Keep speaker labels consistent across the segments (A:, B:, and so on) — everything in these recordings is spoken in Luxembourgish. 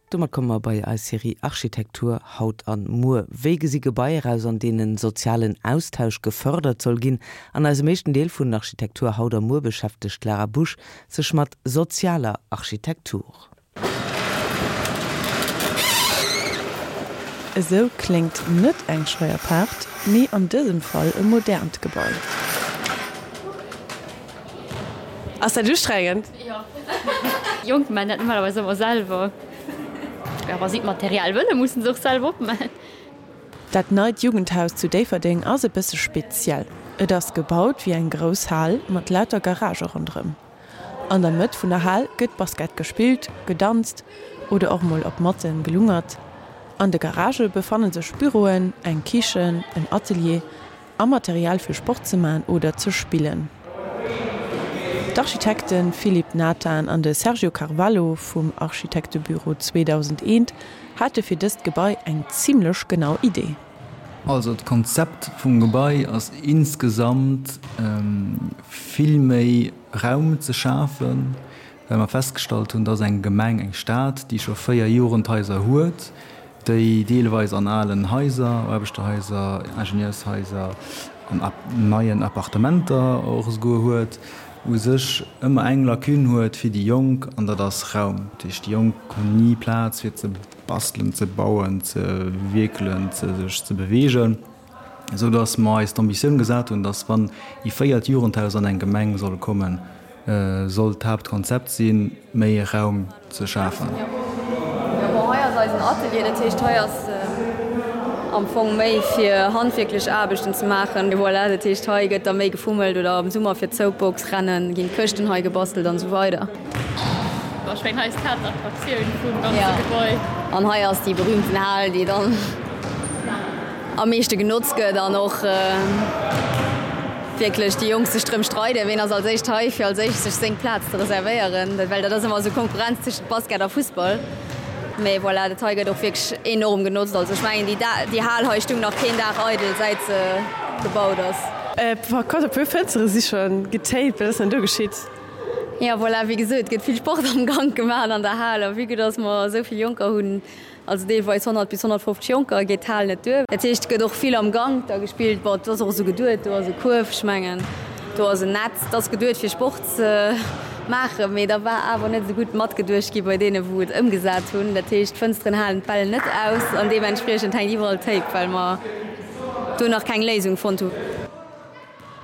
A: Domat komme mer bei eis Serie Architektur haut an muer. Wéi gesi Gebaier aus, an deenen sozialen Austausch gefërdert soll ginn? An eisem éischten Deel vun Architektur haut a muer beschäftegt d'Lara Busch sech mat sozialer Architektur.
B: Esou kléngt net eng Scheierpaart, mee an dësem Fall e modernt Gebai. Ass dat ustrengend?
C: Jo. Jonk man dat normalerweis ëmmer selwer. Jo, wa si d'Material wëllen, mussen se och selwer opman.
B: Dat neit Jugendhaus zu Déifferdeng ass e bësse speziell. Et ass gebaut wéi eng grouss Hal mat lauter Garagë ronderëm. An der Mëtt vun der Hal gëtt Basket gespillt, gedanzt oder och mol op Matte gelungert. An de Garagë befanne sech Büroen, eng Kichen, en Atelier a Material fir Sport ze man oder ze spillen. D'Architekte Philippe Nathan an de Sergio Carvalho vum Architektebüro 2001 hate fir dëst Gebai eng zimmlech genau Idee.
D: Also d'Konzept vum Gebai ass insgesamt vill méi Raum ze schafen, well mer festgestallt hunn, dass eng Gemeng, eng Stad, déi scho 4 Jugendhaiser huet, déi deelweis an alen Haiser, Aarbechterhaiser, Ingenieurshaiser an neien Appartementer och esouguer huet, u sech ëmmer eng Lacune huet fir déi Jonk, an dat ass Raum. Dat heescht, déi Jonk hunn ni Plaz fir ze bastelen, ze bauen, ze wierkelen, ze sech ze beweegen. Esou datt mer eis d'Ambitioun gesat hunn, datt wann ee véiert Jugendhaus an eng Gemeng soll kommen, soll d'Haaptkonzept sinn, méi Raum ze schafen.
E: Jo, bon, hei ass eisen Atelier, dat heescht hei ass am Fong méi fir handwierklech Aarbechten ze maachen. Voilà, dat heescht hei gëtt da méi gefummelt oder am Summer fir d'Soapbox-Rennen ginn d'Këschten hei gebastelt an esou weider.
C: Bon, ech mengen hei ass d'Haaptattraktioun vum ganze Gebai.
E: An hei ass déi berühmten Hal, déi dann am meeschte genotzt gëtt an och wierklech déi Jonk sech drëm streiden, ween ass als éischt hei, fir als éischt sech seng Plaz ze reservéieren, well dat ass ëmmer esou Konkurrenz tëschent Basket a Fussball. Mee voilà, dat hei gëtt och wierklech enorm genotzt. Also ech mengen, déi déi Hal hei stung nach keen Dag eidel, säit se gebaut ass.
B: Par contre, e puer Fënstere si scho getaped. Wat ass denn do geschitt?
E: Jo, voilà, wéi gesot, et gëtt vill Sport am Gank gemaach an der Hal. A vue que dass mer esou vill Jonker hunn, also deelweis 100 bis 150 Jonker, geet d'Hal net duer. Dat heescht, et gëtt och vill am Gank da gespillt. Bon, et ass och esou geduet, do ass e Kuerf, ech mengen, do ass en Netz, et ass geduet fir Sport ze maachen, mee da war awer net esou gutt matgeduecht gi bei deene wou et ëmgesat hunn. Dat heescht, d'Fënsteren halen d'Bäll net aus an deementspriechend hänkt iwwerall Tape, well mer do nach keng Léisung fonnt hunn.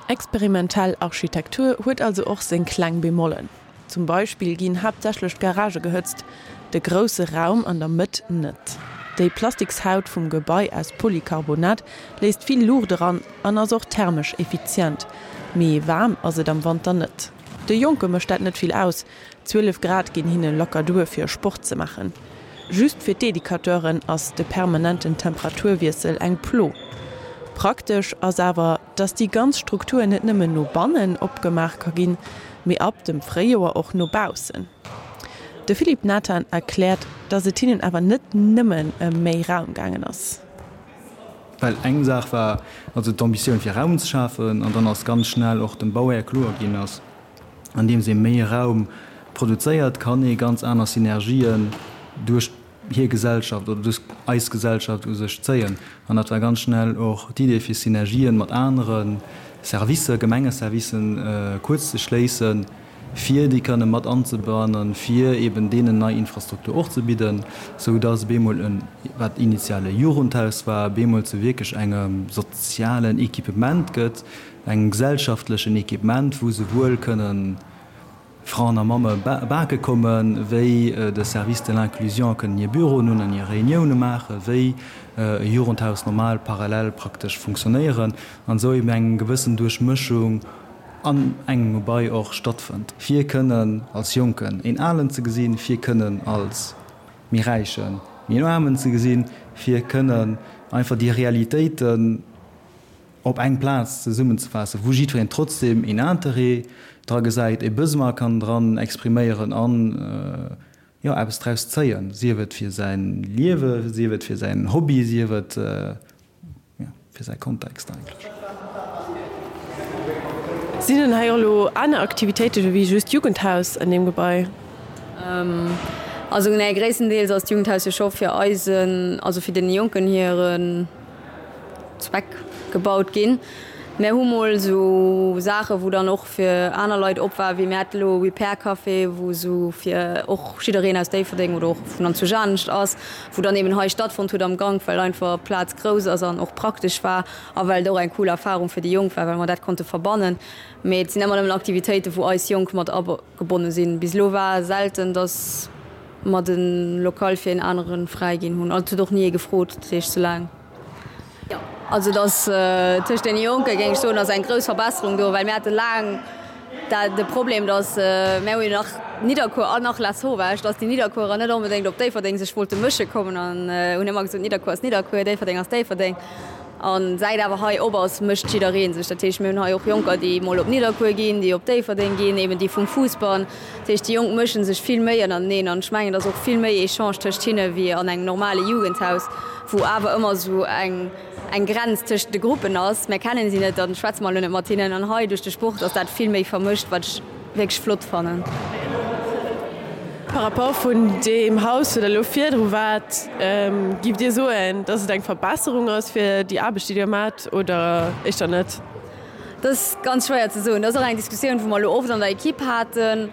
B: Experimentell Architektur huet also och seng kleng Bemollen. Zum Beispill ginn haaptsächlech d'Garagë gehëtzt, de grousse Raum an der Mëtt net. Déi Plastikshaut vum Gebai aus Polycarbonat léisst vill Luucht eran an ass och thermesch effizient. Mee waarm ass et am Wanter net. De Jonke mécht dat net vill aus, 12 Grad ginn hinne locker duer fir Sport ze maachen. Just fir d'Educateuren ass de permanenten Temperaturwiessel eng Plo. Praktesch ass awer, dass déi ganz Struktur net nëmmen no bannen opgemaach ka ginn, mee ab dem Fréijoer och no baussen. De Philippe Nathan erkläert, dass et hinnen awer net nëmmen ëm méi Raum gaangen ass.
D: Well eng Saach war also d'Ambitioun fir Raum ze schafen an dann ass ganz schnell och dem Bauhär kloer ginn, dass andeems ee méi Raum produzéiert, kann ee ganz aner Synergien duerch hir Gesellschaft oder duerch eis Gesellschaft u sech zéien. An dat war ganz schnell och d'Idee fir Synergien mat anere Servicer, Gemengeservicen kuerz ze schléissen, fir déi kënne mat anzebannen, fir eben deenen nei Infrastruktur och ze bidden, sou dass op eemol en, wat initial e Jugendhaus war, op eemol zu wierklech engem sozialen Equipement gëtt, engem gesellschaftlechen Equipement, wou souwuel kënnen Fraen a Mamme bake kommen, wéi de Service de l'inclusion kënnen hir Büroen hunn an hir Reunioune maachen, wéi e Jugendhaus normal parallel praktesch funktionéieren an esou eben eng gewëssen Duerchmëschung an engem Gebai och stattfënnt, fir kënnen als Jonken een Alen ze gesinn, fir kënnen als méi Räichen méi en Aarmen ze gesinn, fir kënnen einfach déi Realitéiten op eng Plaz zesummenzefaassen, wou jiddwereen trotzdem een Interêt dra gesäit, e Besoin kann dran expriméieren an, jo, eppes draus zéien, sief et fir säin Liewe, sief et fir säin Hobby, sief et, jo, fir säi Kontext eigentlech.
B: Sinn denn hei och elo aner Aktivitéiten ewéi just Jugendhaus an deem Gebai?
E: Also nee, gréisstendeels ass d'Jugendhaus jo scho fir eisen, also fir deene Jonken hiren Zweck gebaut ginn. Mär hu mol esou Saache wou dann och fir aner Leit op war, wéi mir hate lo e Repair Café, wou esou fir och jiddereen aus Déifferdeng oder och vun anzwousch anescht ass, wou dann eben hei stattfonnt huet am Gank, well einfach d'Plaz grouss ass an och praktesch war a well et och eng cool Erfarung fir déi Jonk war, well mer dat konnte verbannen. Mee et sinn ëmmer nëmmen Aktivitéiten, wou eis Jonk mat agebonne sinn. Bis elo war selten, datt mer de Local fir een anere fräi ginn hunn. Also et huet och ni ee gefrot, dat heescht soulaang. Jo, also et ass tëscht deene Jonke géing ech soen, ass eng grouss Verbesserung do, well mir hate laang dat de Problem, datt mir hu jo nach Nidderkuer an nach Lasauvage, datt déi Nidderkuerer net onbedéngt op Déifferdeng sech wollte mësche kommen an hunn ëmmer gesot, Nidderkuer ass Nidderkuer, Déifferdeng ass Déifferdeng. An säit awer hei op ass, mécht jidderee sech. Dat heescht, mir hunn hei och Jonker, déi mol op Nidderkuer ginn, déi op Déifferdeng ginn, eben déi vum Fussball. Dat heescht, déi Jonk mësche sech vill méi ënnerteneen an ech mengen, et ass och vill méi Echange tëscht hinne wéi an engem normale Jugendhaus, wou awer ëmmer esou eng eng Grenz tëscht de Gruppen ass. Mär kennen si net, dann schwätze mer elo net mat hinnen. An hei duerch de Sport ass dat vill méi vermëscht, wat ech wierklech flott fannen.
B: Par rapport vun deem Haus, wou Der elo virdru waart, giff Dir soen, dass et eng Verbesserung ass fir déi Aarbecht, déi Dir maacht, oder éischter net?
E: Dat ass ganz schwéier ze soen. Dat ass och eng Diskussioun, wou mer elo oft an der Equipe haten.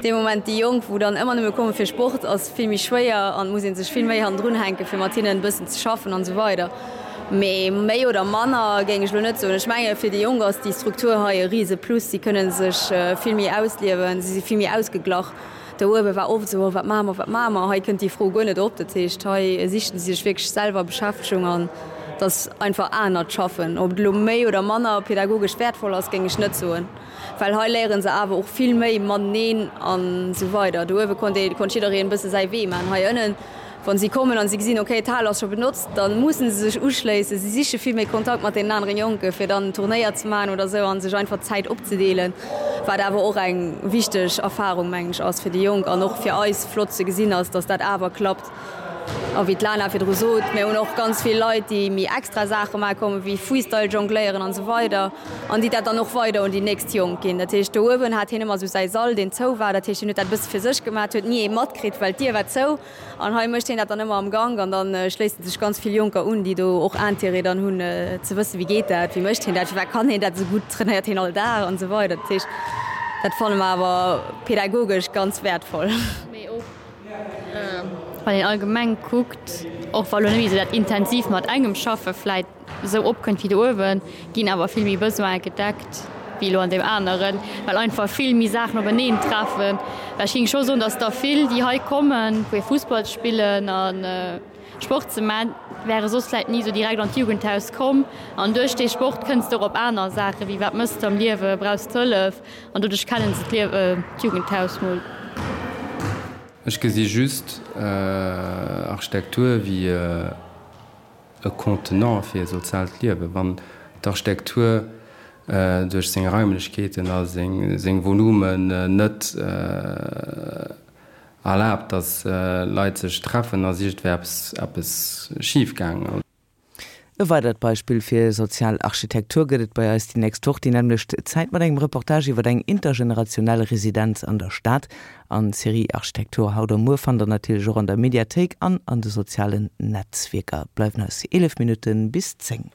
E: Dee Moment, déi Jonk, wou dann ëmmer nëmme komme fir Sport, ass vill méi schwéier an et muss ee sech vill méi hannendrun hänken, fir mat hinnen e bëssen ze schaffen an esou weider. Mee méi oder manner géing ech elo net soen. Ech menge fir déi Jonk ass déi Struktur hei e rise Plus. Si kënne sech vill méi ausliewen, si si vill méi ausgeglach. Do uewe war oft esou, oh wat maache mer, wat maache mer? Hei kënnt déi Fro guer net op. Dat heescht, hei sichen si sech wierklech selwer Beschäftegung an et ass einfach anert Schaffen. Ob et elo méi oder manner pädagogesch wäertvoll ass, géing ech net soen, well hei léiere se awer och vill méi mateneen an esou weider. Do uewe konnt ee, konnt jiddereen e bësse säi Wee maachen. Hei ënnen Wann si kommen an si gesinn, okay, d'Hal ass scho benotzt, da mussen se sech uschléissen. Si siche vill méi Kontakt mat deenen aneren Jonken, fir dann Turnéier ze maachen oder esou a sech einfach d'Zäit opzedeelen, wat awer och eng wichteg Erfarung, mengen ech, ass fir déi Jonk an och fir eis flott ze gesinn ass, dass dat awer klappt. A wéi d'Lana virdru sot, mir hunn och ganz vill Leit, déi méi extra Saache maache kommen, wéi Freestyle jongléieren an esou weider an déi dat dann och weider un déi nächst Jonk ginn. Dat heescht, do uewen hat hien ëmmer esou säi Sall, deen zou war. Dat heescht, hien huet dat e bësse fir sech gemaach, huet ni ee matkritt, well d'Dier war zou. An hei mécht hien dat dann ëmmer am Gank an dann schléissen sech ganz vill Jonker un, déi do och Intérêt dann hunn ze wëssen, wéi geet dat, wéi mécht hien dat, firwat kann hien dat esou gutt, trainéiert hien all Dag an esou weider. Dat heescht, dat fanne mer awer pädagogesch ganz wäertvoll.
C: Mee och wann een allgemeng kuckt, och wa lo net méi esou dat intensiv mat engem schaffe vläit, esou opkënnt wéi do uewen, ginn awer vill méi Besoine gedeckt wéi elo an deem aneren, well einfach vill méi Saachen openeen treffen. Well ech géing scho soen, datt der vill, déi hei kommen, fir Fussball ze spillen a Sport ze man, wäre soss vläicht ni esou direkt an d'Jugendhaus komm. An duerch dee Sport kënns de och op aner Saachen, wéi wat mëss de am Liewe, brauchs de Hëllef? An doduerch kennen se d'Jugendhaus mol.
F: Ech gesi just Architektur wéi e Contenant fir e soziaalt Liewen. Wann d'Architektur duerch seng Raimlechkeeten a seng Volumen net erlaabt, datt Leit sech treffen, ass iergendwéi eppes schif gaangen.
A: E weidert Beispill fir sozial Architektur gëtt et bei eis déi nächst Woch déi nämmlecht Zäit mat engem Reportage iwwer eng intergenerationell Residenz an der Stad. An d'Serie Architektur haut a muer fannt der natierlech och an der Mediathéik an an de sozialen Netzwierker. Bleiwen eis 11 Minutte bis 10.